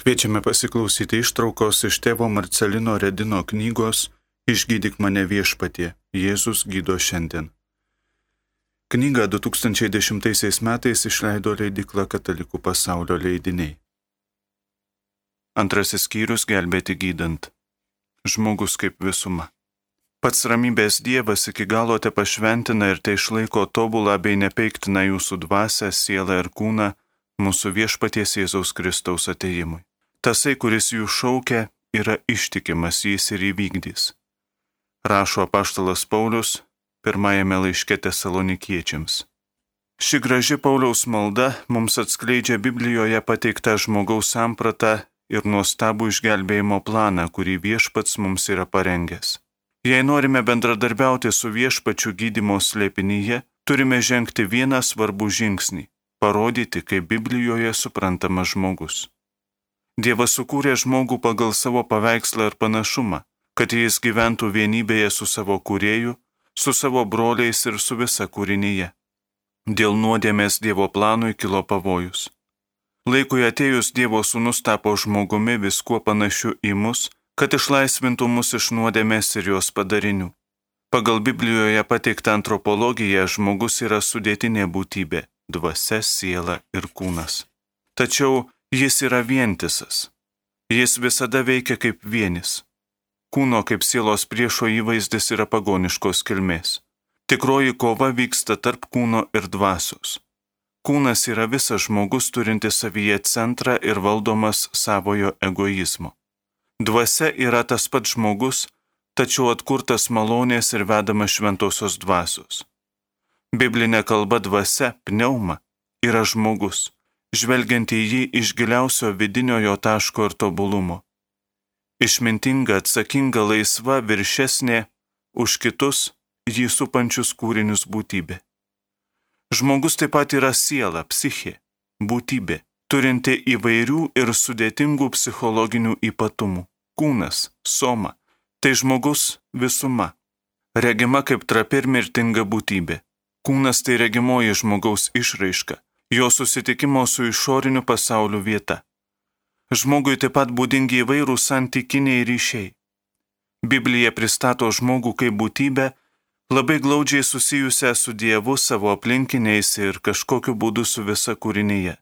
Kviečiame pasiklausyti ištraukos iš tėvo Marcelino Redino knygos Išgydyk mane viešpatie, Jėzus gydo šiandien. Knygą 2010 metais išleido leidykla Katalikų pasaulio leidiniai. Antrasis skyrius gelbėti gydant. Žmogus kaip visuma. Pats ramybės Dievas iki galo te pašventina ir te išlaiko tobulą bei nepeiktiną jūsų dvasią, sielą ir kūną mūsų viešpaties Jėzaus Kristaus atėjimui. Tasai, kuris jų šaukia, yra ištikimas, jis ir įvykdys. Rašo apaštalas Paulius pirmajame laiške Tesalonikiečiams. Ši graži Pauliaus malda mums atskleidžia Biblijoje pateiktą žmogaus sampratą ir nuostabų išgelbėjimo planą, kurį viešpats mums yra parengęs. Jei norime bendradarbiauti su viešpačiu gydymo slėpinyje, turime žengti vieną svarbų žingsnį – parodyti, kaip Biblijoje suprantamas žmogus. Dievas sukūrė žmogų pagal savo paveikslą ir panašumą, kad jis gyventų vienybėje su savo kūrėju, su savo broliais ir su visa kūrinyje. Dėl nuodėmės Dievo planui kilo pavojus. Laikui atėjus Dievo sūnus tapo žmogumi viskuo panašiu į mus, kad išlaisvintų mus iš nuodėmės ir jos padarinių. Pagal Biblijoje pateiktą antropologiją žmogus yra sudėtinė būtybė – dvasia, siela ir kūnas. Tačiau jis yra vientisas. Jis visada veikia kaip vienis. Kūno kaip sielos priešo įvaizdis yra pagoniškos kilmės. Tikroji kova vyksta tarp kūno ir dvasios. Kūnas yra visas žmogus turintis savyje centrą ir valdomas savojo egoizmo. Dvasia yra tas pats žmogus, tačiau atkurtas malonės ir vedamas šventosios dvasios. Biblinė kalba dvasia, pneuma, yra žmogus, žvelgiant į jį iš giliausio vidinio jo taško ir tobulumo. Išmintinga, atsakinga, laisva, viršesnė už kitus jį supančius kūrinius būtybė. Žmogus taip pat yra siela, psichė, būtybė, turinti įvairių ir sudėtingų psichologinių ypatumų. Kūnas, soma, tai žmogus visuma, regima kaip trapi ir mirtinga būtybė. Kūnas tai regimoji žmogaus išraiška, jo susitikimo su išoriniu pasauliu vieta. Žmogui taip pat būdingi įvairūs santykiniai ryšiai. Biblija pristato žmogų kaip būtybę, labai glaudžiai susijusią su Dievu, savo aplinkiniais ir kažkokiu būdu su visa kūrinyje.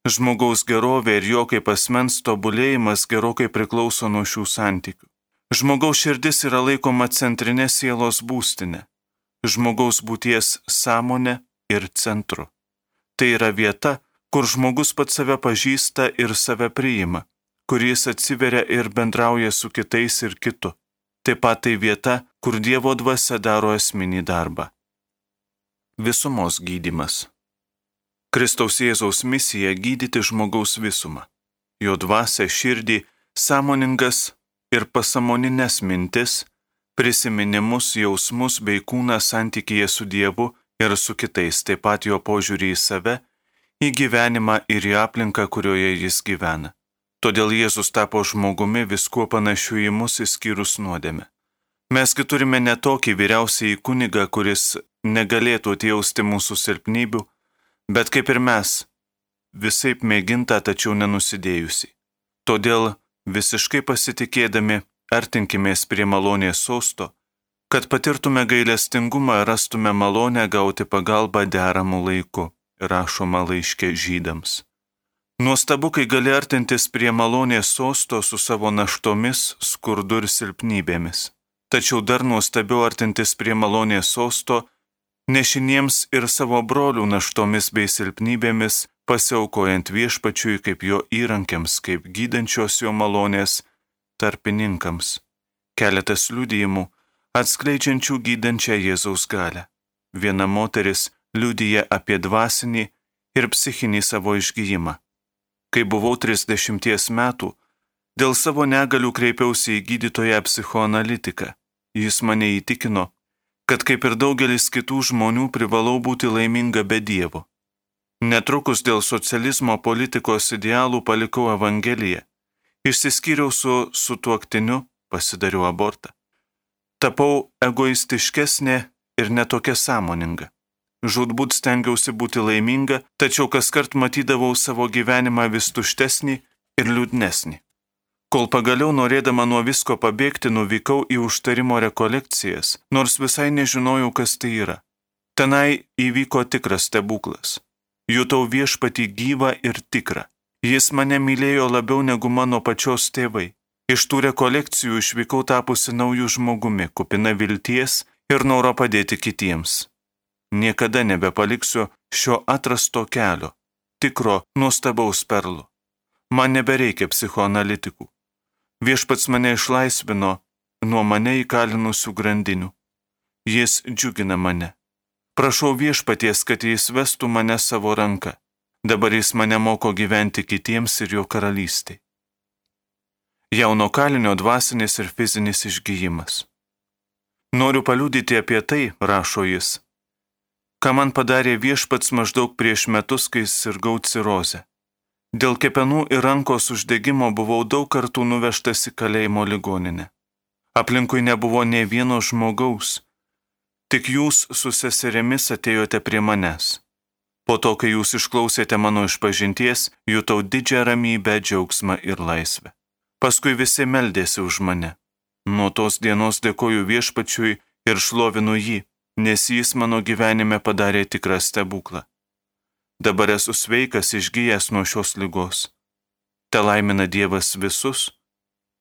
Žmogaus gerovė ir jo kaip asmens tobulėjimas gerokai priklauso nuo šių santykių. Žmogaus širdis yra laikoma centrinė sielos būstinė, žmogaus būties sąmonė ir centru. Tai yra vieta, kur žmogus pats save pažįsta ir save priima, kur jis atsiveria ir bendrauja su kitais ir kitu. Taip pat tai vieta, kur Dievo dvasia daro esminį darbą. Visumos gydymas. Kristaus Jėzaus misija gydyti žmogaus visumą. Jo dvasia, širdį, sąmoningas ir pasąmoninės mintis, prisiminimus, jausmus bei kūną santykyje su Dievu ir su kitais, taip pat jo požiūrį į save, į gyvenimą ir į aplinką, kurioje jis gyvena. Todėl Jėzus tapo žmogumi viskuo panašiu į mus išskyrus nuodėmę. Mesgi turime ne tokį vyriausiąjį kunigą, kuris negalėtų atjausti mūsų silpnybių, bet kaip ir mes, visaip mėginta, tačiau nenusidėjusi. Todėl visiškai pasitikėdami artinkimės prie malonės sosto, kad patirtume gailestingumą ir rastume malonę gauti pagalbą deramų laiku. Rašoma laiške Žydams. Nuostabu, kai gali artintis prie malonės sosto su savo naštomis, skurdu ir silpnybėmis. Tačiau dar nuostabiau artintis prie malonės sosto, nešiniems ir savo brolių naštomis bei silpnybėmis, pasiaukojant viešpačiui kaip jo įrankiams, kaip gydančios jo malonės tarpininkams. Keletas liudijimų, atskleidžiančių gydančią Jėzaus galią. Viena moteris liudija apie dvasinį ir psichinį savo išgijimą. Kai buvau 30 metų, dėl savo negalių kreipiausi į gydytoją psichoanalitiką. Jis mane įtikino, kad kaip ir daugelis kitų žmonių privalau būti laiminga be Dievo. Netrukus dėl socializmo politikos idealų palikau Evangeliją. Išsiskyriau su sutuoktiniu, pasidariau abortą. Tapau egoistiškesnė ir netokia sąmoninga. Žūtbūt stengiausi būti laiminga, tačiau kaskart matydavau savo gyvenimą vis tuštesnį ir liūdnesnį. Kol pagaliau norėdama nuo visko pabėgti, nuvykau į užtarimo rekolekcijas, nors visai nežinojau, kas tai yra. Tenai įvyko tikras stebuklas. Jutau Viešpatį gyvą ir tikrą. Jis mane mylėjo labiau negu mano pačios tėvai. Iš tų rekolekcijų išvykau tapusi naujų žmogumi, kupina vilties ir noro padėti kitiems. Niekada nebepaliksiu šio atrasto kelio, tikro nuostabaus perlo. Man nebereikia psichoanalitikų. Viešpats mane išlaisvino nuo mane įkalinusių grandinių. Jis džiugina mane. Prašau Viešpaties, kad jis vestų mane savo ranką. Dabar jis mane moko gyventi kitiems ir jo karalystei. Jauno kalinio dvasinis ir fizinis išgijimas. Noriu paliudyti apie tai, rašo jis, ką man padarė Viešpats maždaug prieš metus, kai sirgau cirozę. Dėl kepenų ir rankos uždegimo buvau daug kartų nuvežtas į kalėjimo ligoninę. Aplinkui nebuvo nė vieno žmogaus, tik jūs su seserėmis atėjote prie manęs. Po to, kai jūs išklausėte mano išpažinties, jutau didžią ramybę, džiaugsmą ir laisvę. Paskui visi meldėsi už mane. Nuo tos dienos dėkoju Viešpačiui ir šlovinu jį, nes jis mano gyvenime padarė tikrą stebuklą. Dabar esu sveikas, išgijęs nuo šios ligos. Te laimina Dievas visus,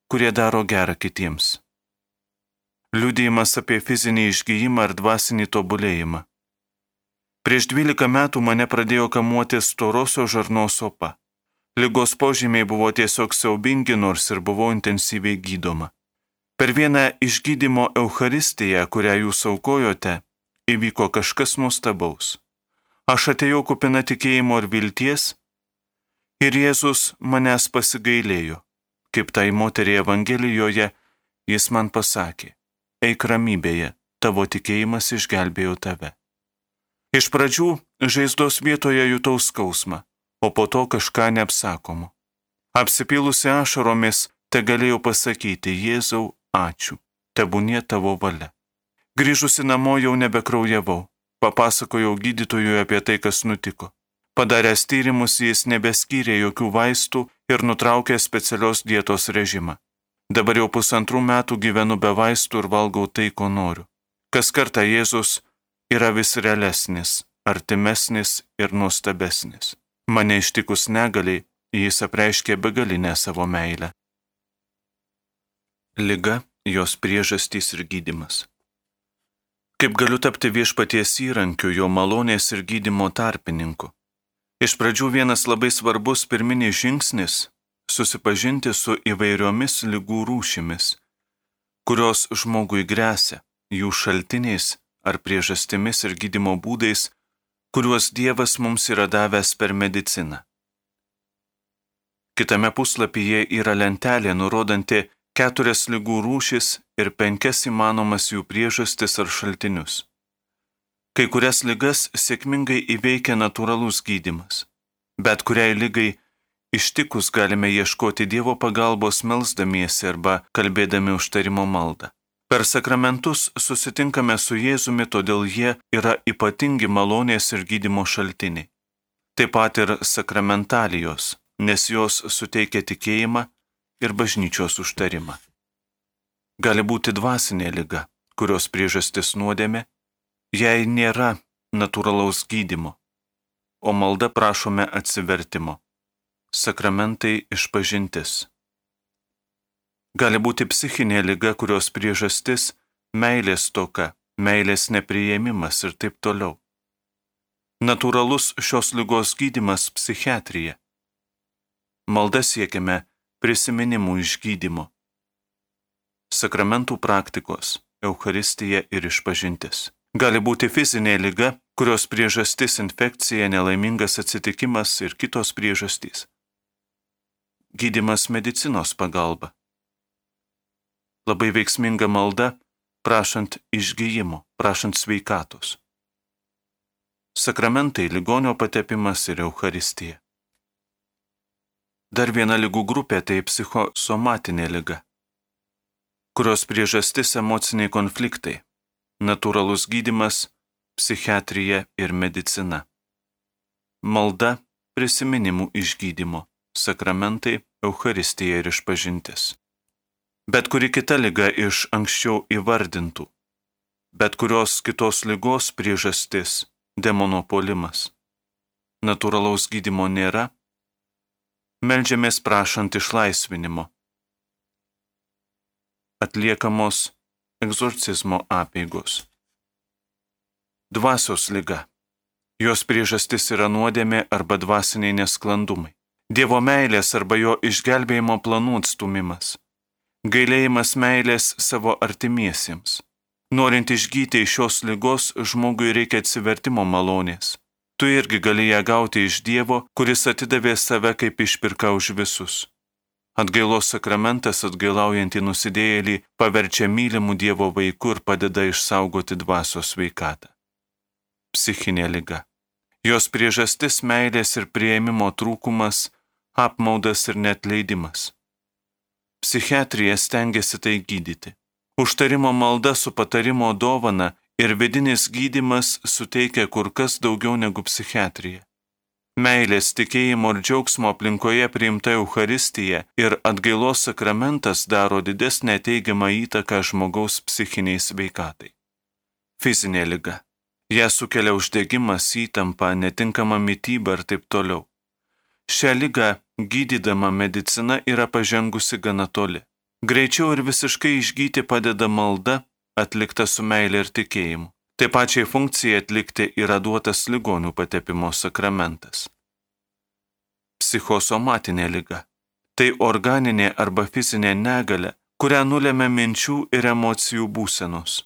kurie daro gerą kitiems. Liudijimas apie fizinį išgijimą ar dvasinį tobulėjimą. Prieš 12 metų mane pradėjo kamuoti storosios žarnos opa. Ligos požymiai buvo tiesiog siaubingi, nors ir buvau intensyviai gydoma. Per vieną išgydymo Eucharistiją, kurią jūs aukojote, įvyko kažkas nuostabaus. Aš atėjau kupina tikėjimo ir vilties, ir Jėzus manęs pasigailėjo. Kaip tai moteriai Evangelijoje, jis man pasakė, eik ramybėje, tavo tikėjimas išgelbėjo tave. Iš pradžių žaizdos vietoje jutau skausmą, o po to kažką neapsakomo. Apsipylusi ašaromis, te galėjau pasakyti, Jėzau, ačiū, tebūnie tavo valia. Grįžusi namo jau nebekraujavau. Papasakojau gydytojui apie tai, kas nutiko. Padaręs tyrimus, jis nebeskyrė jokių vaistų ir nutraukė specialios dietos režimą. Dabar jau 1,5 metų gyvenu be vaistų ir valgau tai, ko noriu. Kas kartą Jėzus yra vis realesnis, artimesnis ir nuostabesnis. Mane ištikus negaliai, jis apreiškė begalinę savo meilę. Liga, jos priežastys ir gydymas. Kaip galiu tapti Viešpaties įrankiu, jo malonės ir gydymo tarpininku? Iš pradžių vienas labai svarbus pirminis žingsnis – susipažinti su įvairiomis ligų rūšimis, kurios žmogui gresia, jų šaltiniais ar priežastimis ir gydymo būdais, kuriuos Dievas mums yra davęs per mediciną. Kitame puslapyje yra lentelė nurodanti 4 ligų rūšis ir 5 įmanomas jų priežastis ar šaltinius. Kai kurias ligas sėkmingai įveikia natūralus gydymas, bet kuriai ligai ištikus galime ieškoti Dievo pagalbos melsdamiesi arba kalbėdami užtarimo maldą. Per sakramentus susitinkame su Jėzumi, todėl jie yra ypatingi malonės ir gydymo šaltiniai. Taip pat ir sakramentalijos, nes jos suteikia tikėjimą ir bažnyčios užtarimą. Gali būti dvasinė liga, kurios priežastis nuodėmė, jei nėra natūralaus gydymo, o malda prašome atsivertimo. Sakramentai išpažintis. Gali būti psichinė liga, kurios priežastis meilės stoka, meilės nepriėmimas ir taip toliau. Natūralus šios ligos gydymas psichiatrija. Malda siekiame prisiminimų išgydymo. Sakramentų praktikos, Eucharistija ir išpažintis. Gali būti fizinė liga, kurios priežastis infekcija, nelaimingas atsitikimas ir kitos priežastys. Gydymas medicinos pagalba. Labai veiksminga malda, prašant išgyjimo, prašant sveikatos. Sakramentai, ligonio patepimas ir Eucharistija. Dar viena ligų grupė tai psichosomatinė liga, kurios priežastis emociniai konfliktai, natūralus gydymas, psichiatrija ir medicina. Malda, prisiminimų išgydymo, sakramentai, Eucharistija ir išpažintis. Bet kuri kita liga iš anksčiau įvardintų, bet kurios kitos ligos priežastis – demono puolimas. Natūralaus gydymo nėra, meldžiamės prašant išlaisvinimo. Atliekamos egzorcizmo apeigos. Dvasios liga. Jos priežastis yra nuodėmė arba dvasiniai nesklandumai. Dievo meilės arba jo išgelbėjimo planų atstumimas. Gailėjimas meilės savo artimiesiems. Norint išgyti iš šios ligos, žmogui reikia atsivertimo malonės. Tu irgi gali ją gauti iš Dievo, kuris atidavė save kaip išpirką už visus. Atgailos sakramentas atgailaujantį nusidėjėlį paverčia mylimų Dievo vaiku ir padeda išsaugoti dvasios sveikatą. Psichinė liga. Jos priežastis meilės ir priėmimo trūkumas, apmaudas ir neatleidimas. Psichiatrija stengiasi tai gydyti. Užtarimo malda su patarimo dovana ir vidinis gydymas suteikia kur kas daugiau negu psichiatrija. Meilės, tikėjimo ir džiaugsmo aplinkoje priimta Eucharistija ir atgailos sakramentas daro didesnę teigiamą įtaką žmogaus psichiniai sveikatai. Fizinė liga. Ją sukelia uždegimas, įtampa, netinkama mityba ir taip toliau. Šią ligą gydydama medicina yra pažengusi gana toli. Greičiau ir visiškai išgyti padeda malda, atlikta su meilė ir tikėjimu. Taip pačiai funkcijai atlikti yra duotas ligonių patepimo sakramentas. Psichosomatinė liga. Tai organinė arba fizinė negalia, kurią nulemia minčių ir emocijų būsenos.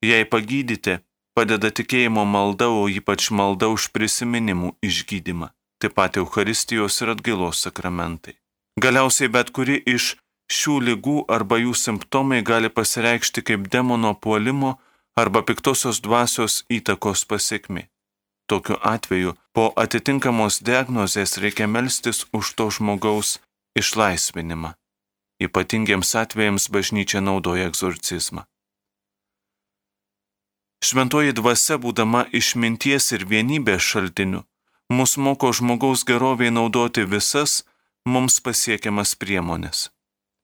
Jei pagydyti, padeda tikėjimo malda, o ypač malda už prisiminimų išgydymą. Taip pat Eucharistijos ir atgailos sakramentai. Galiausiai bet kuri iš šių ligų arba jų simptomai gali pasireikšti kaip demono puolimo arba piktosios dvasios įtakos pasekmė. Tokiu atveju po atitinkamos diagnozės reikia melstis už to žmogaus išlaisvinimą. Ypatingiems atvejams bažnyčia naudoja egzorcizmą. Šventoji dvasia, būdama išminties ir vienybės šaltiniu, mus moko žmogaus geroviai naudoti visas mums pasiekiamas priemonės.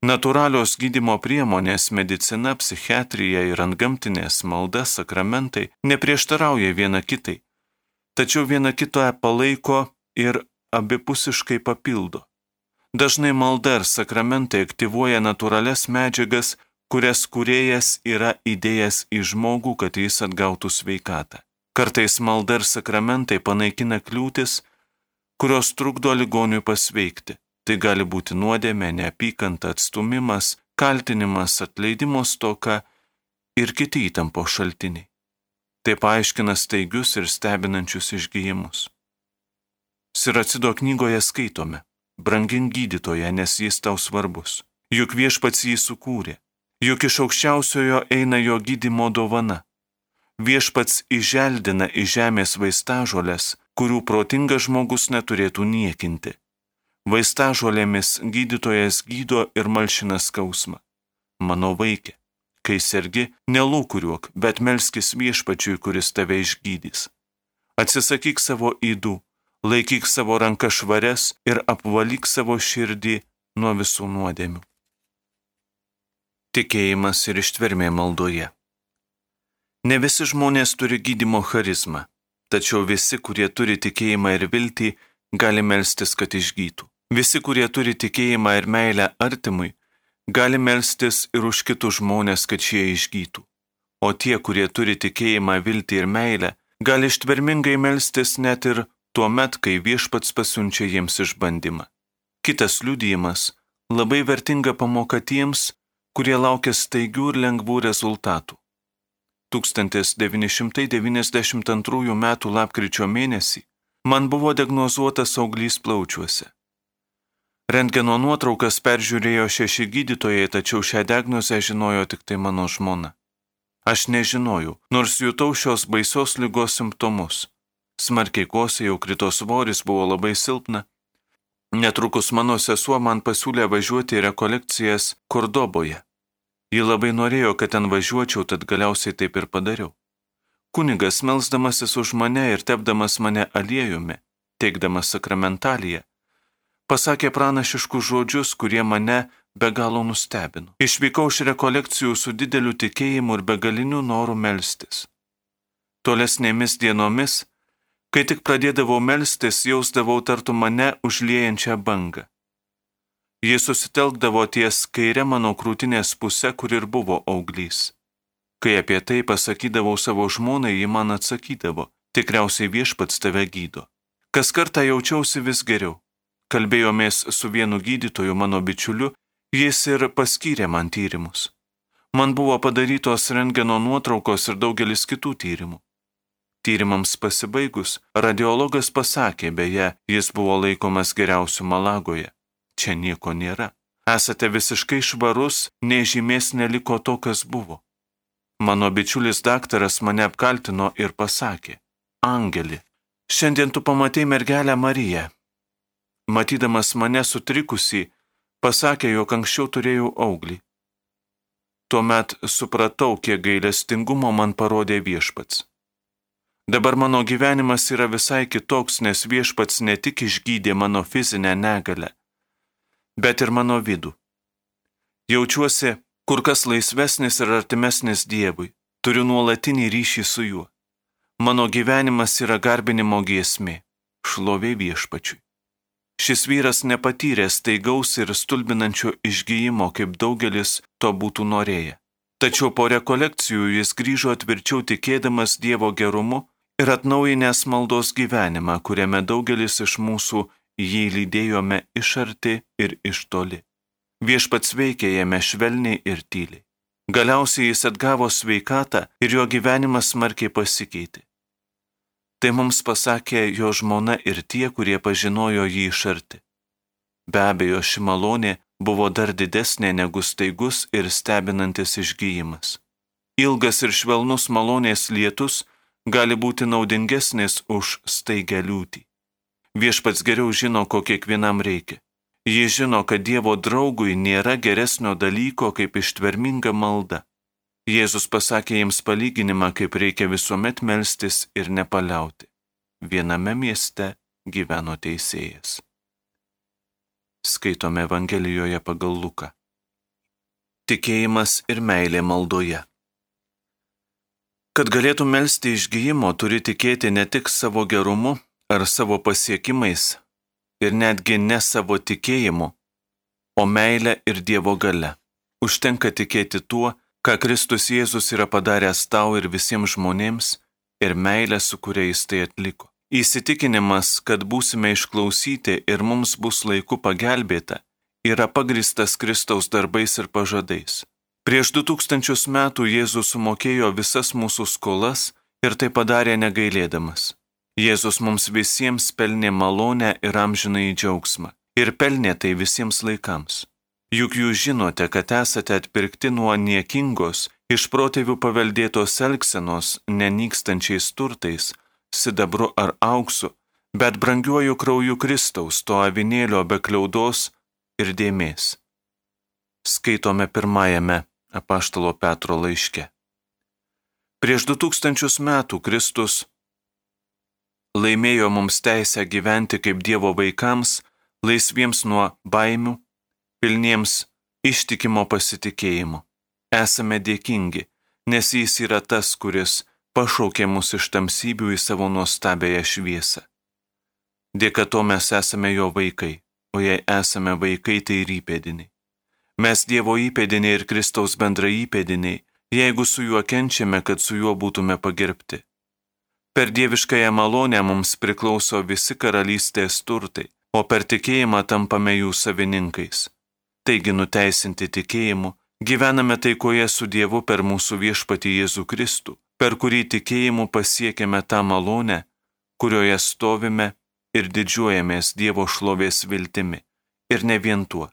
Natūralios gydymo priemonės, medicina, psichiatrija ir antgamtinės malda, sakramentai neprieštarauja viena kitai, tačiau viena kitą palaiko ir abipusiškai papildo. Dažnai malda ir sakramentai aktyvuoja natūralias medžiagas, kurias kūrėjas yra įdėjęs į žmogų, kad jis atgautų sveikatą. Kartais malda ir sakramentai panaikina kliūtis, kurios trukdo ligoniui pasveikti. Tai gali būti nuodėmė, neapykanta, atstumimas, kaltinimas, atleidimo stoka ir kiti įtampos šaltiniai. Tai paaiškina staigius ir stebinančius išgijimus. Siracido knygoje skaitome: brangink gydytoją, nes jis tau svarbus. Juk viešpats jį sukūrė. Juk iš aukščiausiojo eina jo gydymo dovana. Viešpats įželdina iš žemės vaistažolės, kurių protingas žmogus neturėtų niekinti. Vaistažolėmis gydytojas gydo ir malšina skausmą. Mano vaikė, kai sergi, nelūkuriuok, bet melskis viešpačiui, kuris tave išgydys. Atsisakyk savo ydų, laikyk savo rankas švarias ir apvalyk savo širdį nuo visų nuodėmių. Tikėjimas ir ištvermė maldoje. Ne visi žmonės turi gydymo charizmą, tačiau visi, kurie turi tikėjimą ir viltį, gali melstis, kad išgytų. Visi, kurie turi tikėjimą ir meilę artimui, gali melstis ir už kitus žmonės, kad šie išgytų. O tie, kurie turi tikėjimą, viltį ir meilę, gali ištvermingai melstis net ir tuo met, kai viešpats pasiunčia jiems išbandymą. Kitas liudijimas – labai vertinga pamoka tiems, kurie laukia staigių ir lengvų rezultatų. 1992 m. lapkričio mėnesį man buvo diagnozuotas auglys plaučiuose. Rentgeno nuotraukas peržiūrėjo 6 gydytojai, tačiau šią diagnozę žinojo tik tai mano žmona. Aš nežinojau, nors jutau šios baisios ligos simptomus. Smarkiai kosėjau, krito svoris, buvo labai silpna. Netrukus mano sesuo man pasiūlė važiuoti į rekolekcijas Kordoboje. Ji labai norėjo, kad ten važiuočiau, tad galiausiai taip ir padariau. Kunigas, melsdamasis už mane ir tepdamas mane aliejumi, teikdamas sakramentaliją, pasakė pranašiškus žodžius, kurie mane be galo nustebino. Išvykau iš rekolekcijų su dideliu tikėjimu ir begaliniu noru melstis. Tolesnėmis dienomis, kai tik pradėdavau melstis, jausdavau tartum mane užliejančią bangą. Jis susitelkdavo ties kairė mano krūtinės pusė, kur ir buvo auglys. Kai apie tai pasakydavau savo žmonai, ji man atsakydavo, tikriausiai Viešpats tave gydo. Kas kartą jaučiausi vis geriau. Kalbėjomės su vienu gydytoju, mano bičiuliu, jis ir paskyrė man tyrimus. Man buvo padarytos rentgeno nuotraukos ir daugelis kitų tyrimų. Tyrimams pasibaigus, radiologas pasakė, beje, jis buvo laikomas geriausiu Malagoje. Čia nieko nėra. Esate visiškai švarus, nei žymės neliko to, kas buvo. Mano bičiulis daktaras mane apkaltino ir pasakė, Angeli, šiandien tu pamatei mergelę Mariją. Matydamas mane sutrikusį, pasakė, jog anksčiau turėjau auglį. Tuomet supratau, kiek gailestingumo man parodė Viešpats. Dabar mano gyvenimas yra visai kitoks, nes Viešpats ne tik išgydė mano fizinę negalę, bet ir mano vidų. Jaučiuosi kur kas laisvesnis ir artimesnis Dievui, turiu nuolatinį ryšį su juo. Mano gyvenimas yra garbinimo giesmė, šlovė Viešpačiui. Šis vyras nepatyrė staigaus ir stulbinančio išgijimo, kaip daugelis to būtų norėję. Tačiau po rekolekcijų jis grįžo tvirčiau tikėdamas Dievo gerumu ir atnaujinęs maldos gyvenimą, kuriame daugelis iš mūsų jį lydėjome iš arti ir iš toli. Viešpats veikė jame švelniai ir tyliai. Galiausiai jis atgavo sveikatą ir jo gyvenimas smarkiai pasikeitė. Tai mums pasakė jo žmona ir tie, kurie pažinojo jį iš arti. Be abejo, ši malonė buvo dar didesnė negu staigus ir stebinantis išgijimas. Ilgas ir švelnus malonės lietus gali būti naudingesnis už staigę liūtį. Viešpats geriau žino, ko kiekvienam reikia. Jis žino, kad Dievo draugui nėra geresnio dalyko kaip ištverminga malda. Jėzus pasakė jiems palyginimą, kaip reikia visuomet melstis ir nepaliauti. Viename mieste gyveno teisėjas. Skaitome Evangelijoje pagal Luką. Tikėjimas ir meilė maldoje. Kad galėtum melsti išgijimo, turi tikėti ne tik savo gerumu ar savo pasiekimais, ir netgi ne savo tikėjimu, o meilę ir Dievo galia. Užtenka tikėti tuo, ką Kristus Jėzus yra padaręs tau ir visiems žmonėms, ir meilę, su kuria jis tai atliko. Įsitikinimas, kad būsime išklausyti ir mums bus laiku pagelbėta, yra pagristas Kristaus darbais ir pažadais. Prieš 2000 metų Jėzus sumokėjo visas mūsų skolas ir tai padarė negailėdamas. Jėzus mums visiems pelnė malonę ir amžinąjį džiaugsmą. Ir pelnė tai visiems laikams. Juk jūs žinote, kad esate atpirkti nuo niekingos, iš protėvių paveldėtos elgsenos, nenykstančiais turtais, sidabru ar auksu, bet brangiuoju krauju Kristaus, to avinėlio be kliaudos ir dėmės. Skaitome pirmajame apaštalo Petro laiške. Prieš 2000 metų Kristus laimėjo mums teisę gyventi kaip Dievo vaikams, laisviems nuo baimių, pilniems ištikimo pasitikėjimo. Esame dėkingi, nes jis yra tas, kuris pašaukė mus iš tamsybių į savo nuostabiąją šviesą. Dėka to mes esame jo vaikai, o jei esame vaikai, tai ir įpėdiniai. Mes Dievo įpėdiniai ir Kristaus bendra įpėdiniai, jeigu su juo kenčiame, kad su juo būtume pagerbti. Per dieviškąją malonę mums priklauso visi karalystės turtai, o per tikėjimą tampame jų savininkais. Taigi nuteisinti tikėjimu, gyvename taikoje su Dievu per mūsų viešpatį Jėzų Kristų, per kurį tikėjimu pasiekėme tą malonę, kurioje stovime ir didžiuojamės Dievo šlovės viltimi. Ir ne vien tuo.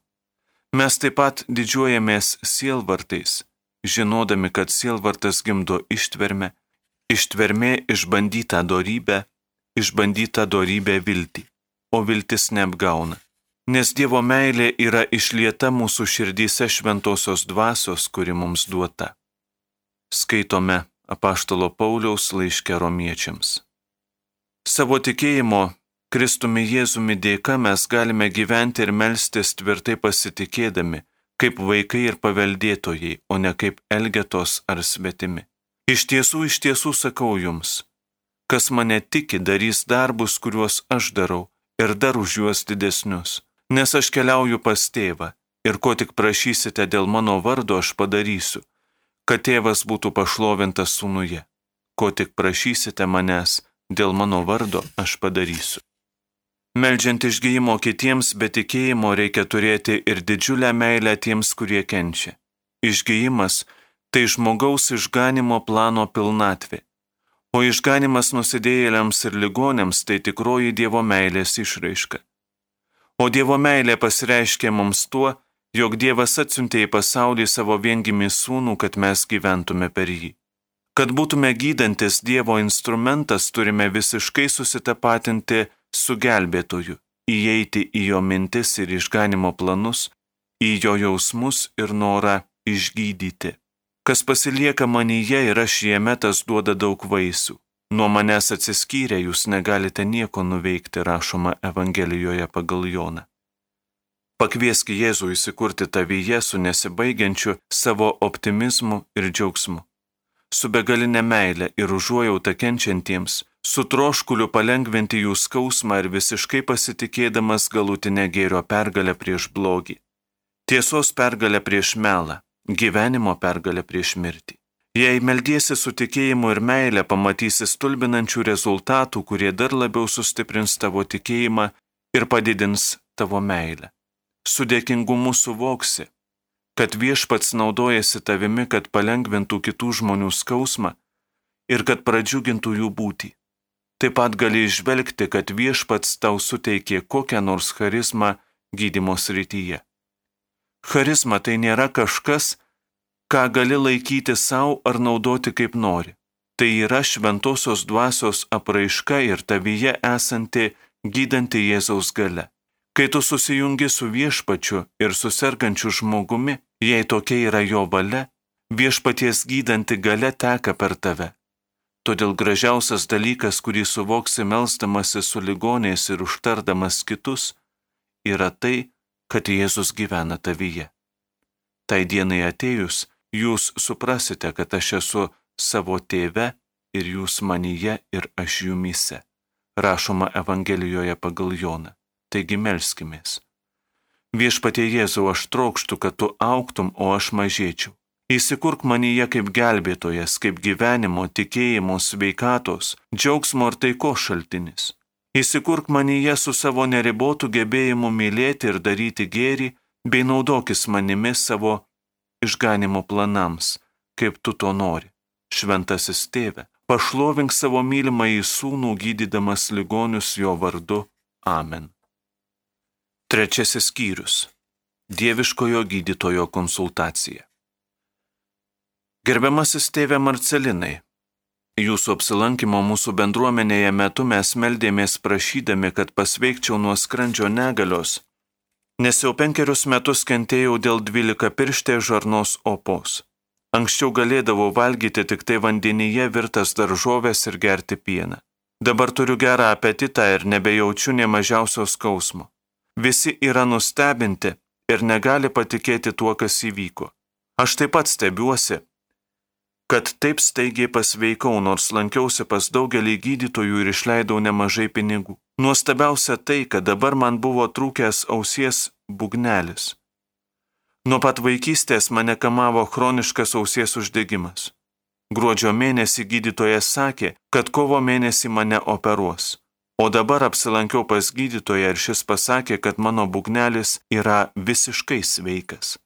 Mes taip pat didžiuojamės sielvartais, žinodami, kad sielvartas gimdo ištvermę, ištvermė išbandytą dorybę viltį, o viltis neapgauna. Nes Dievo meilė yra išlieta mūsų širdyse šventosios dvasios, kuri mums duota. Skaitome apaštalo Pauliaus laiške Romiečiams. Savo tikėjimo Kristumi Jėzumi dėka mes galime gyventi ir melstis tvirtai pasitikėdami, kaip vaikai ir paveldėtojai, o ne kaip elgetos ar svetimi. Iš tiesų sakau jums, kas mane tiki, darys darbus, kuriuos aš darau, ir dar už juos didesnius, nes aš keliauju pas tėvą, ir ko tik prašysite dėl mano vardo aš padarysiu, kad tėvas būtų pašlovintas sūnuje. Ko tik prašysite manęs, dėl mano vardo aš padarysiu. Meldžiant išgijimo kitiems be tikėjimo reikia turėti ir didžiulę meilę tiems, kurie kenčia. Išgijimas – tai žmogaus išganimo plano pilnatvė, o išganimas nusidėjėliams ir ligonėms tai tikroji Dievo meilės išraiška. O Dievo meilė pasireiškia mums tuo, jog Dievas atsiuntė į pasaulį savo viengimį sūnų, kad mes gyventume per jį. Kad būtume gydantis Dievo instrumentas, turime visiškai susitapatinti su gelbėtoju, įeiti į jo mintis ir išganimo planus, į jo jausmus ir norą išgydyti. Kas pasilieka manyje ir aš jame, tas duoda daug vaisių. Nuo manęs atsiskyrę jūs negalite nieko nuveikti, rašoma Evangelijoje pagal Joną. Pakviesk Jėzų įsikurti tavyje su nesibaigiančiu savo optimizmu ir džiaugsmu, su begalinė meile ir užuojauta kenčiantiems, su troškuliu palengventi jų skausmą ir visiškai pasitikėdamas galutinę gėrio pergalę prieš blogį, tiesos pergalę prieš melą, gyvenimo pergalę prieš mirtį. Jei meldiesi su tikėjimu ir meile, pamatysi stulbinančių rezultatų, kurie dar labiau sustiprins tavo tikėjimą ir padidins tavo meilę. Su dėkingumu suvoksi, kad Viešpats naudojasi tavimi, kad palengvintų kitų žmonių skausmą ir kad pradžiugintų jų būtį. Taip pat gali išvelgti, kad Viešpats tau suteikė kokią nors charizmą gydymo srityje. Charizma tai nėra kažkas, ką gali laikyti savo ar naudoti kaip nori. Tai yra šventosios dvasios apraiška ir tavyje esanti gydanti Jėzaus galia. Kai tu susijungi su Viešpačiu ir su sergančiu žmogumi, jei tokia yra jo valia, Viešpaties gydanti galia teka per tave. Todėl gražiausias dalykas, kurį suvoksi melsdamasi su ligoniais ir užtardamas kitus, yra tai, kad Jėzus gyvena tavyje. Tai dienai atėjus, jūs suprasite, kad aš esu savo tėve ir jūs manyje ir aš jumyse. Rašoma Evangelijoje pagal Joną. Taigi melskimės. Viešpatie Jėzau, aš trokštu, kad tu augtum, o aš mažėčiau. Įsikurk manyje kaip gelbėtojas, kaip gyvenimo, tikėjimo, sveikatos, džiaugsmo ir taikos šaltinis. Įsikurk manyje su savo neribotu gebėjimu mylėti ir daryti gėrį, bei naudokis manimi savo išganimo planams, kaip tu to nori. Šventasis Tėve, pašlovink savo mylimąjį sūnų, gydydamas ligonius jo vardu. Amen. Trečiasis skyrius. Dieviškojo gydytojo konsultacija. Gerbiamasis tėve Marcelinai, jūsų apsilankimo mūsų bendruomenėje metu mes meldėmės prašydami, kad pasveikčiau nuo skrandžio negalios, nes jau 5 metus kentėjau dėl 12-pirštės žarnos opos. Anksčiau galėdavau valgyti tik tai vandenyje virtas daržovės ir gerti pieną. Dabar turiu gerą apetitą ir nebejaučiu nė mažiausio skausmo. Visi yra nustebinti ir negali patikėti tuo, kas įvyko. Aš taip pat stebiuosi, kad taip staigiai pasveikau, nors lankiausi pas daugelį gydytojų ir išleidau nemažai pinigų. Nuostabiausia tai, kad dabar man buvo trūkęs ausies būgnelis. Nuo pat vaikystės mane kamavo chroniškas ausies uždegimas. Gruodžio mėnesį gydytojas sakė, kad kovo mėnesį mane operuos. O dabar apsilankiau pas gydytoją ir šis pasakė, kad mano būgnelis yra visiškai sveikas.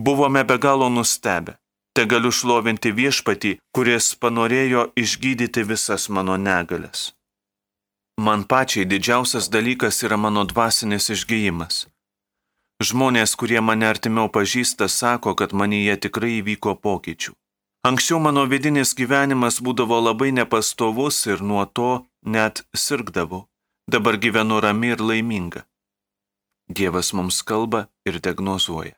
Buvome be galo nustebę. Te galiu šlovinti Viešpatį, kuris panorėjo išgydyti visas mano negalias. Man pačiai didžiausias dalykas yra mano dvasinis išgijimas. Žmonės, kurie mane artimiau pažįsta, sako, kad manyje tikrai įvyko pokyčių. Anksčiau mano vidinis gyvenimas būdavo labai nepastovus ir nuo to net sirgdavau. Dabar gyvenu rami ir laiminga. Dievas mums kalba ir diagnozuoja.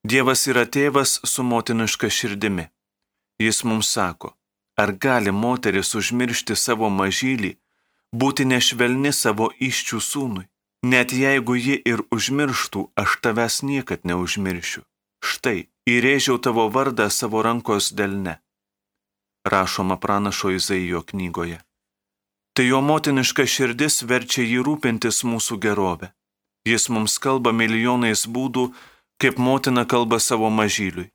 Dievas yra tėvas su motiniška širdimi. Jis mums sako, ar gali moteris užmiršti savo mažylį, būti nešvelni savo iščių sūnui. Net jeigu ji ir užmirštų, aš tavęs niekad neužmiršiu. Štai, įrėžiau tavo vardą savo rankos delne. Rašoma pranašo Izaijo knygoje. Tai jo motiniška širdis verčia jį rūpintis mūsų gerovę. Jis mums kalba milijonais būdų, kaip motina kalba savo mažyliui.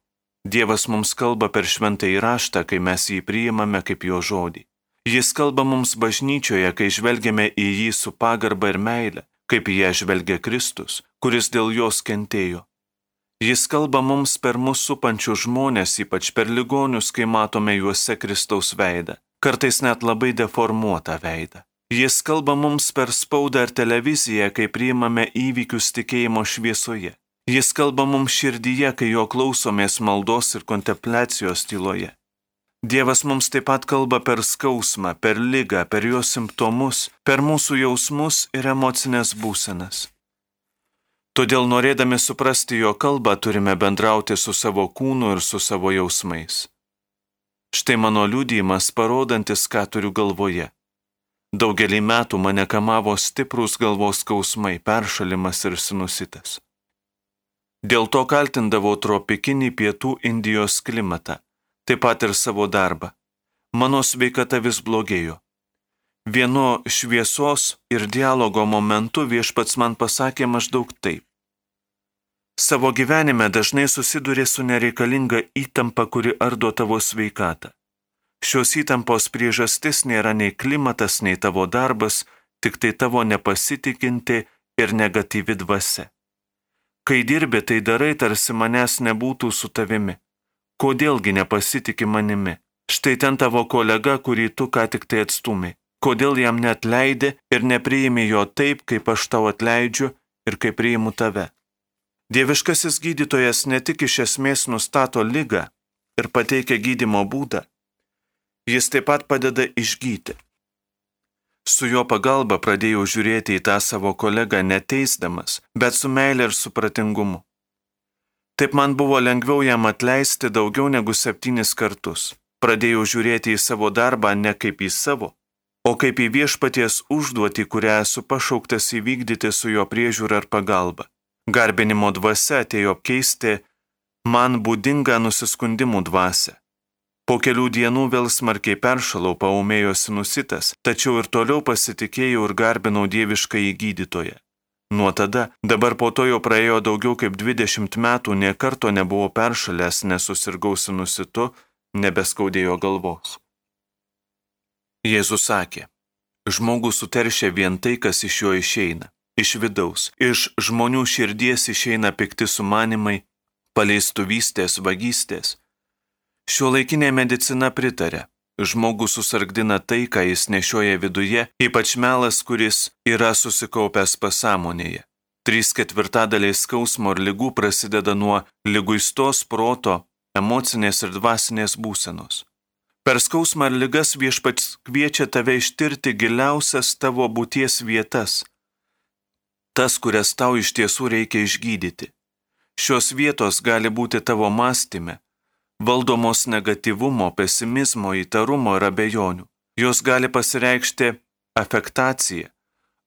Dievas mums kalba per šventąjį raštą, kai mes jį priimame kaip jo žodį. Jis kalba mums bažnyčioje, kai žvelgiame į jį su pagarba ir meile, kaip į ją žvelgia Kristus, kuris dėl jos kentėjo. Jis kalba mums per mus supančius žmonės, ypač per ligonius, kai matome juose Kristaus veidą, kartais net labai deformuotą veidą. Jis kalba mums per spaudą ir televiziją, kai priimame įvykius tikėjimo šviesoje. Jis kalba mums širdyje, kai jo klausomės maldos ir kontempliacijos tyloje. Dievas mums taip pat kalba per skausmą, per ligą, per jo simptomus, per mūsų jausmus ir emocinės būsenas. Todėl norėdami suprasti jo kalbą, turime bendrauti su savo kūnu ir su savo jausmais. Štai mano liudijimas, parodantis, ką turiu galvoje. Daugelį metų mane kamavo stiprūs galvos skausmai, peršalimas ir sinusitas. Dėl to kaltindavau tropikinį pietų Indijos klimatą, taip pat ir savo darbą. Mano sveikata vis blogėjo. Vienu šviesos ir dialogo momentu Viešpats man pasakė maždaug taip. Savo gyvenime dažnai susiduri su nereikalinga įtampa, kuri ardo tavo sveikatą. Šios įtampos priežastis nėra nei klimatas, nei tavo darbas, tik tai tavo nepasitikinti ir negatyvi dvasia. Kai dirbi, tai darai, tarsi manęs nebūtų su tavimi. Kodėlgi nepasitiki manimi? Štai ten tavo kolega, kurį tu ką tik tai atstumi. Kodėl jam neatleidi ir nepriimi jo taip, kaip aš tau atleidžiu ir kaip priimu tave? Dieviškasis gydytojas ne tik iš esmės nustato ligą ir pateikia gydymo būdą, jis taip pat padeda išgyti. Su jo pagalba pradėjau žiūrėti į tą savo kolegą neteisdamas, bet su meile ir supratingumu. Taip man buvo lengviau jam atleisti daugiau negu 7 kartus. Pradėjau žiūrėti į savo darbą ne kaip į savo, o kaip į viešpaties užduotį, kurią esu pašauktas įvykdyti su jo priežiūra ir pagalba. Garbinimo dvasia atėjo apkeisti man būdingą nusiskundimų dvasią. Po kelių dienų vėl smarkiai peršalau, paūmėjo sinusitas, tačiau ir toliau pasitikėjau ir garbinau dieviškąjį gydytoją. Nuo tada, dabar po to jau praėjo daugiau kaip 20 metų, nė karto nebuvau peršalęs, nesusirgau sinusitu, nebeskaudėjo galvos. Jėzus sakė, žmogus suteršia vien tai, kas iš jo išeina, iš vidaus, iš žmonių širdies išeina pikti sumanimai, paleistuvystės, vagystės. Šiuolaikinė medicina pritarė, žmogus susargdina tai, ką jis nešioja viduje, ypač melas, kuris yra susikaupęs pasąmonėje. 3/4 skausmo ir ligų prasideda nuo liguistos proto, emocinės ir dvasinės būsenos. Per skausmą ir ligas Viešpats kviečia tave ištirti giliausias tavo būties vietas, tas, kurias tau iš tiesų reikia išgydyti. Šios vietos gali būti tavo mąstyme, valdomos negatyvumo, pesimizmo, įtarumo ir abejonių. Jos gali pasireikšti afektacija,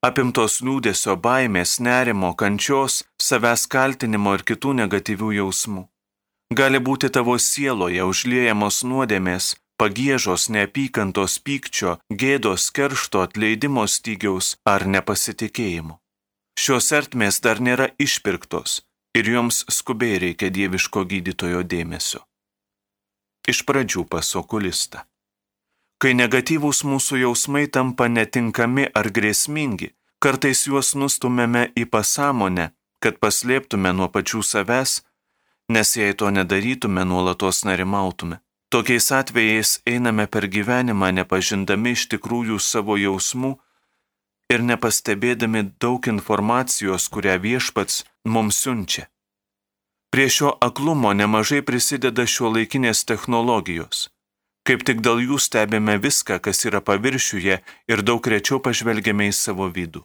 apimtos liūdesio, baimės, nerimo, kančios, savęs kaltinimo ir kitų negatyvių jausmų. Gali būti tavo sieloje užliejamos nuodėmės, pagiežos, neapykantos, pykčio, gėdos, keršto, atleidimo stygiaus ar nepasitikėjimo. Šios ertmės dar nėra išpirktos ir joms skubiai reikia dieviško gydytojo dėmesio. Iš pradžių pas okulistą. Kai negatyvūs mūsų jausmai tampa netinkami ar grėsmingi, kartais juos nustumėme į pasąmonę, kad paslėptume nuo pačių savęs, nes jei to nedarytume, nuolatos nerimautume. Tokiais atvejais einame per gyvenimą nepažindami iš tikrųjų savo jausmų ir nepastebėdami daug informacijos, kurią Viešpats mums siunčia. Prie šio aklumo nemažai prisideda šiuolaikinės technologijos. Kaip tik dėl jų stebime viską, kas yra paviršiuje ir daug rečiau pažvelgiame į savo vidų.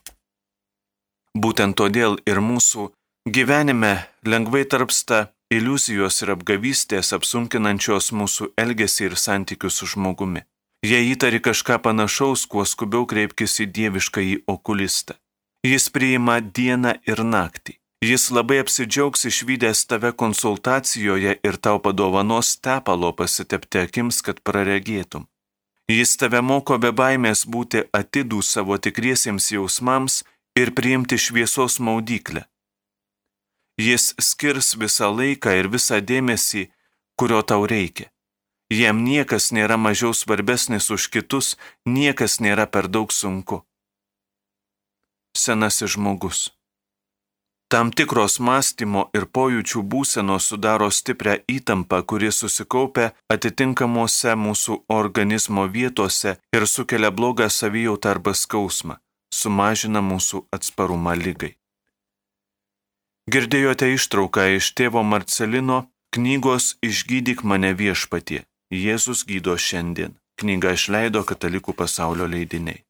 Būtent todėl ir mūsų gyvenime lengvai tarpsta iliuzijos ir apgavystės apsunkinančios mūsų elgesį ir santykius su žmogumi. Jei įtari kažką panašaus, kuo skubiau kreipkis į dieviškąjį okulistą. Jis priima dieną ir naktį. Jis labai apsidžiaugs išvydęs tave konsultacijoje ir tau padovanos tepalo pasitepti akims, kad praregėtum. Jis tave moko be baimės būti atidų savo tikriesiems jausmams ir priimti šviesos maudyklę. Jis skirs visą laiką ir visą dėmesį, kurio tau reikia. Jam niekas nėra mažiau svarbesnis už kitus, niekas nėra per daug sunku. Senasis žmogus. Tam tikros mąstymo ir pojūčių būsenos sudaro stiprią įtampą, kuri susikaupia atitinkamuose mūsų organizmo vietose ir sukelia blogą savijautą arba skausmą, sumažina mūsų atsparumą ligai. Girdėjote ištrauką iš tėvo Marcelino knygos Išgydyk mane viešpatie. Jėzus gydo šiandien. Knygą išleido Katalikų pasaulio leidiniai.